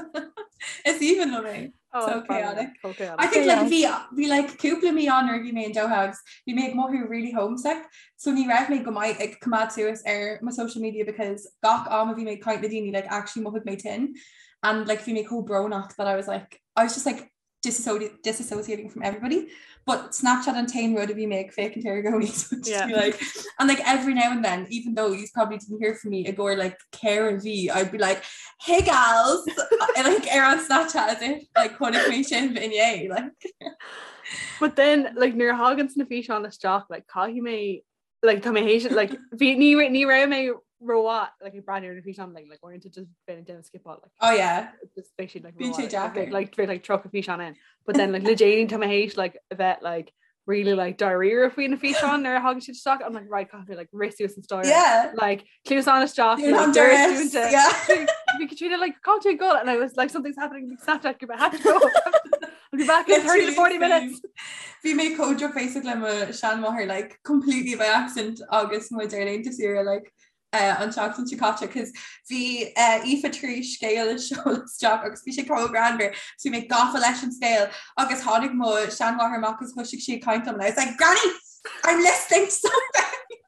Is aoibhinn liom é. oh, so funny. chaotic. So chaotic. I think like bhí bhí like cúpla mí ann nuair a bhí mé in Doha agus bhí mé ag mothú really homesick so ní raibh mé go maith ag coimeád suas ar mo social media because gach am a bhí mé ag caint le daoine like actually mhothaigh mé tinn and like bhí mé chomh brónach that I was like I was just like disassociating from everybody but Snapchat an t-aon rud a bhí mé ag féachaint air i gcónaí so just Yeah. be like and like every now and then even though you probably didn't hear from me i gcomhair like ceithre mhí I'd be like hey gals and like ar an Snapchat as if like chonaic mé sibh inné like But then like nuair a thagann na físeáin isteach like caithfidh mé like tá mé théis like bhí ní ní raibh mé rómhaith like ag breathnú ar na físeáin like like uaireanta just bheinn ag déanamh skipáil like oh yeah just beidh siad like Bíonn sé rómhaith, like, deacair. like bheadh like 30 físeán in but then like le déanaí tá mé théis like a bheith like really like dáiríre faoi na físeáin nuair a thagann siad isteach I'm like right caithfidh mé like rith suas an staighre yeah like cluasáin isteach You're like, on doras duress, dúnta. yeah Bhí Katrina like can't you go and I was like something's happening Snapchat group I have to go I'll be back in 30 to 40 minutes Bhí mé chomh drochbhéasach le mo sheanmháthair like completely by accident agus muid ar laethanta saoire like uh, an tseachtain seo caite cos bhí uh, Aoife tar éis scéal a sheoladh isteach agus bhí sé chomh greannmhar so bhí mé gafa leis an scéal agus tháinig mo sheanmháthair amach agus thosaigh sí ag caint liom and I was like Granny I'm listening to something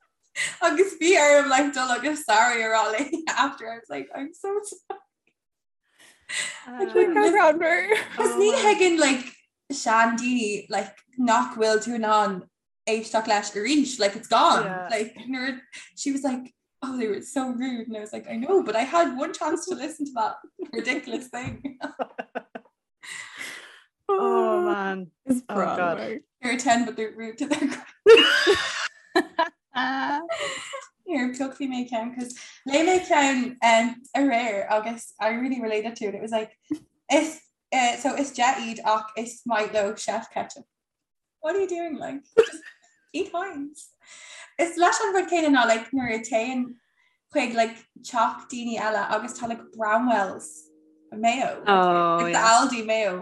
agus bhí orm like dul agus sorry a rá léi after I was like I'm so sorry Cos ní thuigeann like seandaoine like nach bhfuil tú in ann éisteacht leis arís like it's gone Yeah. like nuair she was like oh they were so rude and I was like I know but I had one chance to listen to that ridiculous thing Oh man. Is Oh, God. they're 10 but they're rude to their Here piocfaidh mé ceann cos léigh mé ceann um, aréir agus I really related to it. It was like is uh, so is deich iad ach is maith leo chef ketchup. What are you doing like? Just eat Heinz. Is leis an rud céanna ná like nuair a téann chuig like teach daoine eile agus tá like Bramwell's mayo. Like, Oh, like the yeah. Aldi mayo.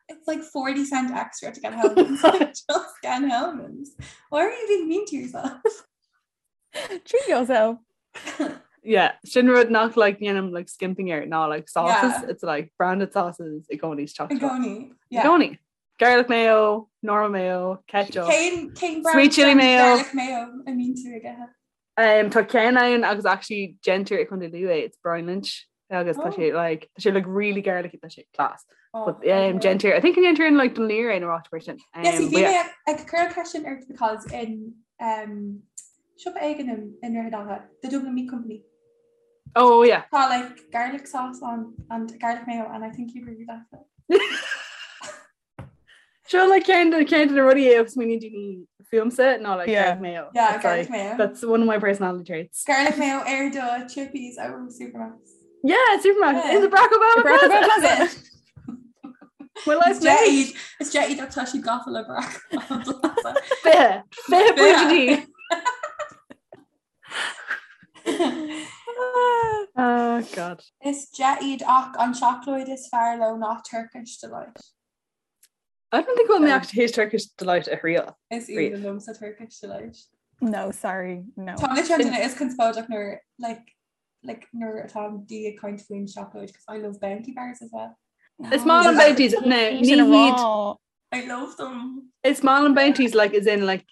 It's like 40 cent extra to get Hellmann's. Just get Hellmann's. Why are you being mean to yourself? Treat yourself. Yeah, sin rud nach like dhéanaim like skimping air ná like sauces. Yeah. It's like branded sauces i gcónaí is I chocolate. gcónaí. I Yeah. gcónaí. Garlic mayo, normal mayo, ketchup. Cén cén Sweet chili mayo. Garlic mayo I mean tú aige. Um, tá ceann ann agus actually déantar i Contae Lú é, it's Brian Lynch agus tá Oh. sé like tá sé like really garlicky tá sé class. Oh, But um, déantar I think déantar in like Dún Laoghaire nó áit mar sin. Um, Yes, but bhí yeah. mé ag cur ceist ort because in um, siopa éigin in i nDroichead Átha, the Dublin Meat Company. Oh yeah. Tá like garlic sauce on and garlic mayo and I think you'd really like it. Sure like ceann de ceann de na rudaí é agus smaoiníonn daoine fúmsa ná like Yeah. garlic mayo. Yeah, It's, garlic like, mayo. That's one of my personality traits. Garlic mayo ar do chippies ó Supermacs. Yeah, Superman Yeah. in the Barack Obama Barack Plaza. Obama Plaza. My life's made. Is is deich iad tá siad gafa le Barack Obama Plaza. Fiche. Fiche pointe. Oh God. Is deich iad ach an seacláid is fearr leo ná Turkish Delight. I don't think we'll me actually his Turkish delight a thriail. Is Really? aoibhinn liomsa Turkish Delight. No, sorry, no. Tá le duine is conspóideach nuair like like nuair atá daoine ag caint faoin seacláid because I love bounty bars as well. Is maith liom bounties no Ní ní sin a hiad rá. I love them. Is maith liom bounties like is in like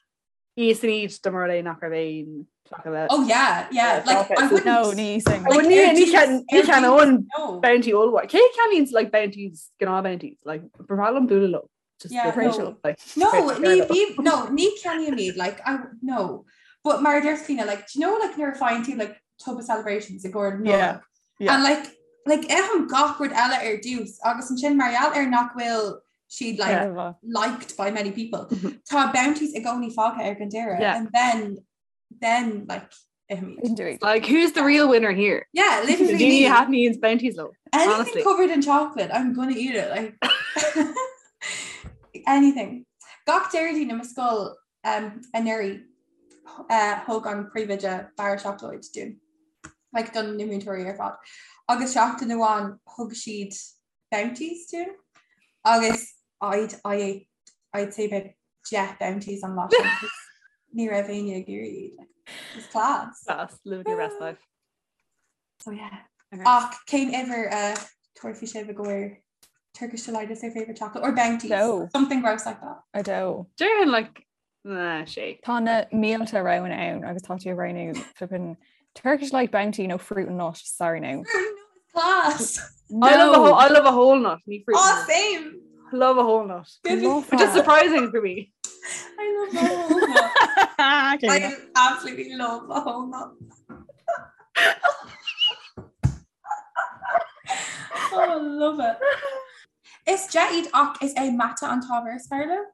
íosfainn iad dá mba rud é nach raibh aon chocolate. Oh yeah, yeah. Yeah, Like chocolate. I wouldn't. No, ní sin. I wouldn't ar ní dtús- can ní ar can dtús, own No. bounty all Cé ceannaíonn like bounties gnáth bounties like ba bhreá liom bualadh leo. Just Yeah, the- no. like No, Right, ní fair bí no ní ceannaím iad like I no. But mar a deir Fiona, like do you know like nuair a faigheann tú like tub of celebrations i gcomhair Yeah, Nollag? yeah. And like like ithim gach rud eile ar dtús agus ansin mar gheall ar nach bhfuil siad like Yeah. liked by many people. Mhm. Tá bounties i gcónaí fágtha ar an deireadh Yeah. and then then like ithim iad. Didn't do it. Like who's the real winner here? Yeah, literally Daoine me. a thaitníonn bounties leo. Anything honestly. covered in chocolate, I'm gonna eat it. Like anything. Gach Déardaoin i mo scoil um, anuraidh uh, thug an príomhoide barra seacláid dúinn. Like don na múinteoirí ar fad. Agus seachtain amháin thug siad Bounties dúinn agus I'd I ate I'd say about 10 Bounties an lá sin because ní raibh éinne ag iarraidh iad like, it's class. Class, living your best life. So yeah. Ach cén uimhir a tabharfaidh sibh i gcomhair Turkish Delight is their favourite chocolate or Bounties? No. Something gross like that. A dó. Déarfainn like na sé. Tá na mílte roghanna ann agus tá tú ag roghnú flippin Turkish Delight Bounty nó fruit and nut, sorry now. Fruit and nut is class. No. I love a whole, I love a whole nut, ní fruit. Oh, same. Love a whole nut. Give Love Which is surprising for me. I love a whole nut. Okay. I absolutely love a whole nut. oh, I love it. Is deich iad ach is é mata an t-ábhar is fearr leo?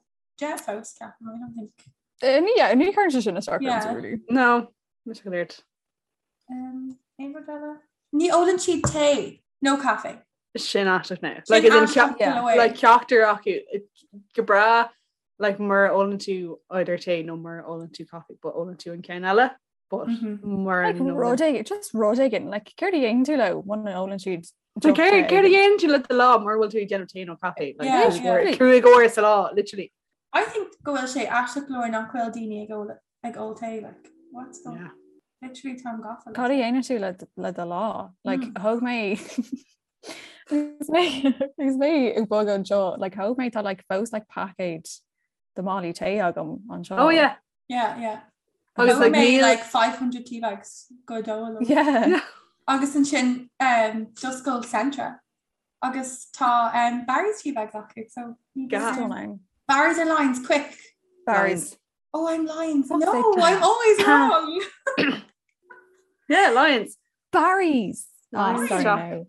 Deich fós ceapaim, I don't think. Eh, ní yeah, ní chuireann sé sin isteach Yeah. ormsa, really. No, mis go léirt. Um, aon rud eile? Ní ólann siad tae nó caife. Sin aisteach now. Sin Like, as in aisteach yeah. go leor. like ceachtar acu go breá like mura ólann tú either tae nó mura ólann tú coffee, but ólann tú an ceann eile, but Mhm. mura Like, n-ólann- rud éigin, just rud éigin, like, céard a dhéanann tú leo muna n-ólann siad So deoch céard tae céard a éigin? dhéanann tú le do lá mura bhfuil tú ag déanamh tae nó caife? Like, Yeah, just yeah. uair- cúig uair sa lá, literally. I think go bhfuil sé aisteach go leor nach bhfuil daoine ag ól ag ól tae, like, what's the Yeah. literally táim gafa Cad a dhéanann tú le le do lá? Like, Mm. thóg mé agus mé agus mé ag bogadh anseo, like, thóg mé tá like fós like paicéad de málaí tae agam anseo. Oh yeah. Yeah, yeah. Agus Thóg like mé níl like 500 tea bags go dóil. Yeah. Agus ansin um, d'oscail Centra. Agus tá um, Barry's tea bags acu, so ní Gas. um, Stunning. Barry's or Lyons, quick. Barry's. Oh, I'm Lyons. Fuck's No, sake. I'm always wrong. Yeah, Lyons. Barry's. Oh, Lyons. sorry Stop. now.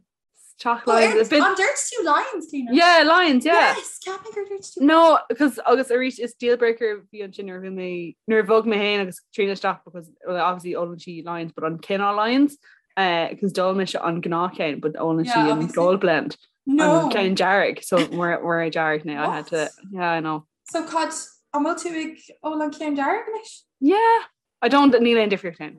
Teach Oh, Lyons. ar- A bit- An dúirt tú Lyons, Clíona? Yeah, Lyons, yeah. Yes, ceapaim gur dúirt tú. No, because agus arís is deal breaker bhí ansin nuair a bhí mé nuair a bhog mé féin agus Tríona isteach because well, obviously ólann sí Lyons but an cineál Lyons because d'ól mise an gnáthcheann but ólann Yeah, sí an obviously. gold blend No. an ceann dearg so we're we're dearg now I had to What? yeah I know So cad an bhfuil tú ag ól an ceann dearg anois? yeah I don't níl aon difríocht ann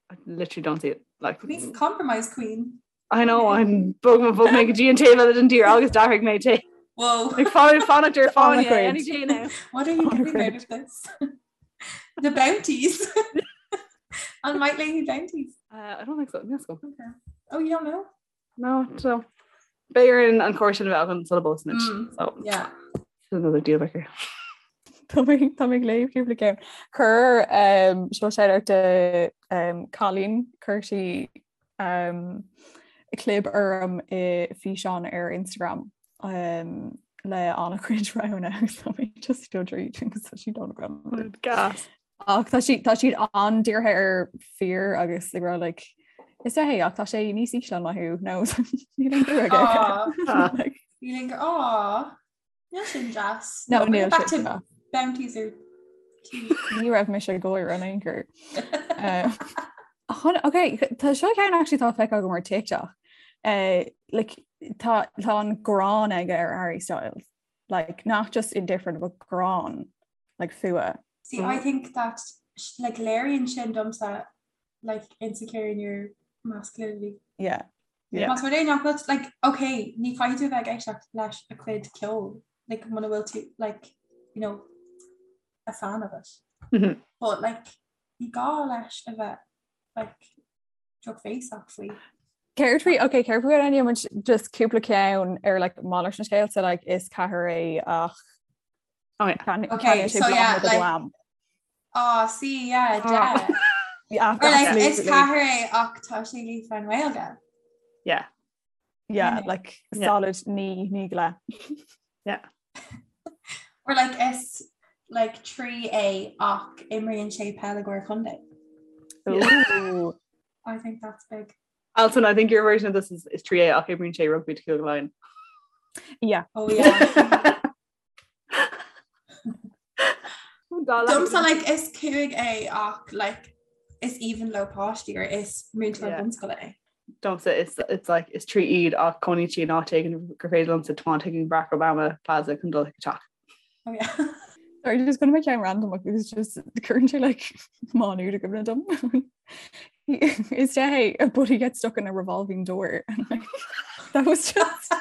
I literally don't see it like Queen's compromise queen. I know I'm bog bhog mé go dtí an taobh eile den tír agus d'athraigh mé tae Whoa. like fáin fanacht ar On the fáinne grid. any day now What are you On a getting out grid. of this? The bounties. An maith léi bounties. uh, I don't think so yes go Okay. Oh, you don't know? No, so B'fhéidir an cóir sin a bheith an sula bpósaimid. Mm. So Yeah. another deal breaker. Tá mé tá mé ag léamh cúpla ceann. Chuir um, seo shout out do um, Colleen chuir sí um, clib orm i físeán ar Instagram um, le an-chuid roghanna agus tá mé just dul tríd agus tá siad an-ghreannmhar. Gas. Ach tá siad tá siad an-dírithe ar fir agus ag rá like is é ach tá sé níos ísle ná thú nó níl aon bua aige. Aw. Ah. Like, Feeling aw. Níl sin deas. No, bring níl it back sin to deas. bounties or tea. Ní raibh mise ag gáire in aon chor. Um, chun- Ok, tá seo ceann actually tá feicthe agam ar TikTok. Uh, like, tá tá an gráin aige ar Harry Styles. Like, not just indifferent, but gráin, like fuath. See, I think that sh- like léiríonn sin domsa like insecure in your masculinity. Yeah. Yeah. Más rud é nach bhfuil like okay, ní chaithfidh tú a bheith ag éisteacht leis a chuid ceoil, like muna bhfuil tú like you know a fan of it. Mhm. But like ní gá leis a bheith like drochbhéasach faoi. Céard faoi ok céard faoi an muid just cúpla ceann ar like malairt na scéalta like is ceathair é ach Oh yeah. can Okay, can sé so yeah, blam like- blam. Oh, see, yeah, Oh. yeah. Yeah, Or like is absolutely. ceathair é ach tá sé líofa i nGaeilge. Yeah. Yeah, Yeah. like Yeah. solid ní ní le. Or like is like 3 é ach imríonn sé peil i gcomhair contae. Ooh. I think that's big. Alton, I think your version of this is, is 3A ach imríonn sé rugby do Cúige Laighean. Yeah. Oh yeah. Domsa like is cúig é ach like is aoibhinn leo páistí or is múinteoir Yeah. bunscoile é. Domsa is it's like is 3 iad ach cónaíonn siad in áit éigin gur féidir liomsa tiomáint chuig Barack Obama Plaza chun dul chuig a teach. Oh yeah. Sorry, just gonna make it random because just currently like Manu to give dom. Is hey, but he gets stuck in a revolving door and like that was just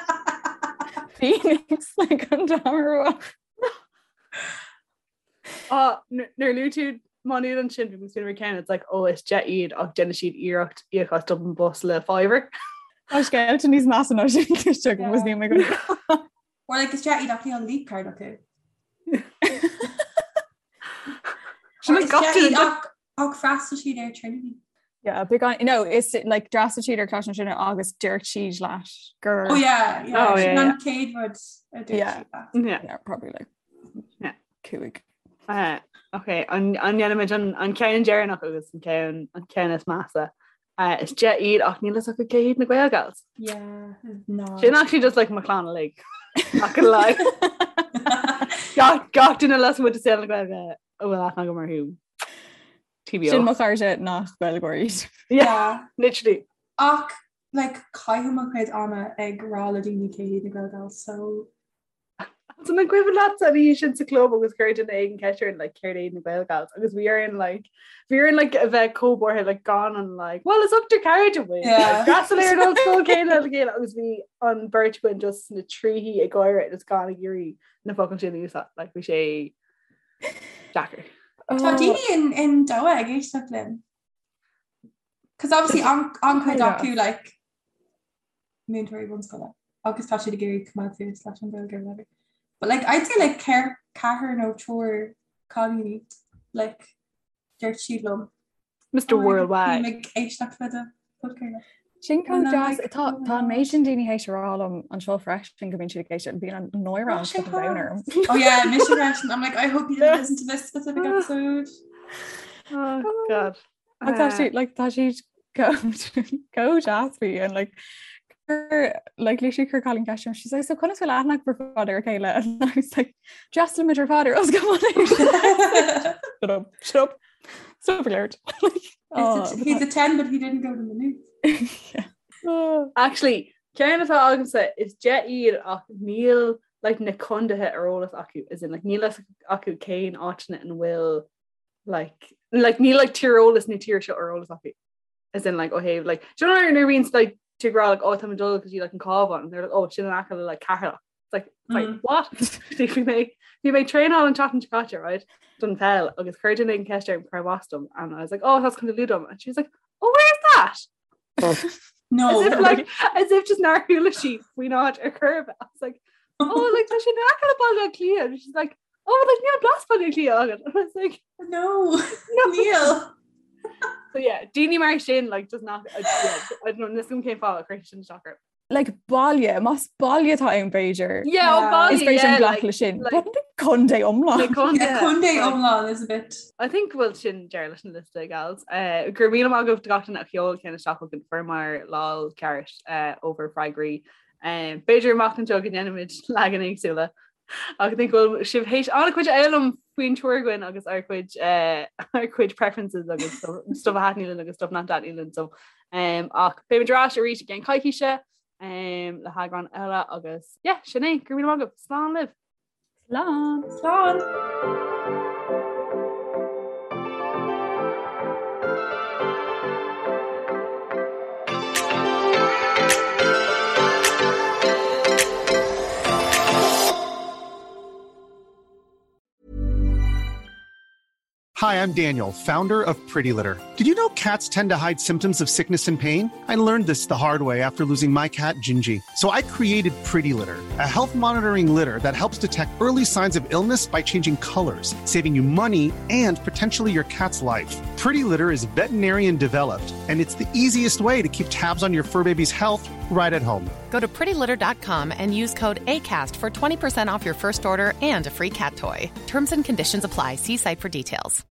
Phoenix like an t-am Ah, nuair luaigh tú Má Nuad ansin bhí mé ceann it's like oh is deich iad ach déanann siad iarracht íoc as Dublin Bus le fiver. Tá scéalta níos measa ná sin cloiste agam agus níl mé go Or like is deich iad ach níl leap card acu. Sin Or is gach deich duine iad ach ach freastal siad ar Trinity. Yeah, beagán no is like d'fhreastail siad ar Coláiste na Tríonóide agus dúirt siad leat gur Oh yeah, yeah. Oh, yeah, Sin an yeah. chéad rud a dúirt Yeah. siad leat. Yeah. yeah, probably like Yeah. cúig. Uh, ok, an an ndéanaimid an an ceann deireanach agus an ceann an ceann is measa. Uh, is deich iad ach níl fhios acu cé hiad na Gaelgals. Yeah, no. Sin actually just like mo chlann uilig. Not gonna lie. Gach gach duine lasmuigh de saol na Gaeilge a bhfuil aithne agam orthu. TBO. Sin mo chairde nach Gaeilgeoirí iad. Yeah, literally. Ach like caithim mo chuid ama ag rá le daoine cé hiad na Gaelgals, so So an cuimhin leat an oíche sin sa club agus chuir duine éigin ceist orainn like céard iad na Gaelgals agus bhí orainn like bhí orainn like a bheith chomh buartha like gan an like well is ochtar cairde muid Yeah. D'fhreastail ar an ollscoil céanna le chéile agus bhí an bheirt againn just sna tríthí ag gáire agus gan ag iarraidh na focail sin a úsáid like bhí sé deacair. Tá daoine in in Doha ag éisteacht linn. Cos obviously an an chuid Yeah. acu like múinteoirí bunscoile agus tá siad ag iarraidh coimeád suas leis an Ghaeilge or whatever. But like I'd say like ceir ceathrar nó triúr cailíní like dúirt siad liom. Mr. "Oh, Worldwide. Bím ag éisteacht le do podchraoladh." Sin chomh And I'm deas like, tá oh my tá an God. méid sin daoine théis a rá liom anseo freisin go mbíonn siad ag éisteacht bíonn an náire Oh, an sin fucking domhan orm. Oh yeah, mise freisin. I'm like I hope you didn't listen to this specific episode. Oh God. Ach tá siad like tá siad chomh deas faoi and like chuir like literally chuir cailín ceist orm she's like so conas bhfuil aithne agaibh ar fad ar a chéile and I was like d'fhreastail muid ar fad ar ollscoil Mhá Nuad. Shut up shut up stop alert like oh, It's a, he's a 10 but he didn't go to Maynooth. yeah. Oh. Actually, ceann atá agamsa is deich iad ach níl like na contaetha ar eolas acu as in like níl fhios acu cén áiteanna ina bhfuil like like níl like tíreolas na tíre seo ar eolas acu as in like ó thaobh like do you know nuair a bhíonn like tú ag rá like oh tá mé ag dul go dtí like an Cabhán and they're like oh sin in aice le like Ceatharlach it's like, it's like Mm. what bhí mé bhí mé ag traenáil an tseachtain seo caite right don pheil agus chuir duine éigin ceist orm cárb as dom and I was like oh that's Contae Lú dom and she was like oh where's that No. as if like as if just nár chuala sí faoin áit ar chor ar bith. I was like oh like tá sé in aice le Baile Átha Cliath and she's like oh like níl blas Baile Átha Cliath agat and I was like No. no Níl. so yeah daoine mar sin like does not I, yeah, I don't know níl a fhios agam cén fáth a chuir sin isteach orm. Like baile más baile atá ann b'fhéidir yeah oh Yeah. baile is féidir yeah, glacadh like, le sin like- but contae iomlán like contae, Yeah, contae like- iomlán is a bit. I think go bhfuil sin deireadh leis an liosta gals. Uh, go raibh míle maith agaibh do gach duine a sheol ceann isteach chugainn fuaireamar lán ceart uh, ábhar freagraí. Um, B'fhéidir amach anseo go ndéanfaimid leagan éagsúla. Ach I think go bhfuil sibh théis an-chuid a fhoghlaim faoin triúr againn agus ár gcuid uh, ár gcuid preferences agus stuff stuff a thaitníonn linn agus stuff nach dtaitníonn linn so um, ach beimid ar ais arís i gceann coicíse um, le heagrán eile agus yeah, sin é go raibh míle maith agaibh. Slán libh! Slán! Slán. Hi, I'm Daniel, founder of Pretty Litter. Did you know cats tend to hide symptoms of sickness and pain? I learned this the hard way after losing my cat, Gingy. So I created Pretty Litter, a health monitoring litter that helps detect early signs of illness by changing colors, saving you money and potentially your cat's life. Pretty Litter is veterinarian developed, and it's the easiest way to keep tabs on your fur baby's health right at home. Go to prettylitter.com and use code ACAST for 20% off your first order and a free cat toy. Terms and conditions apply. See site for details.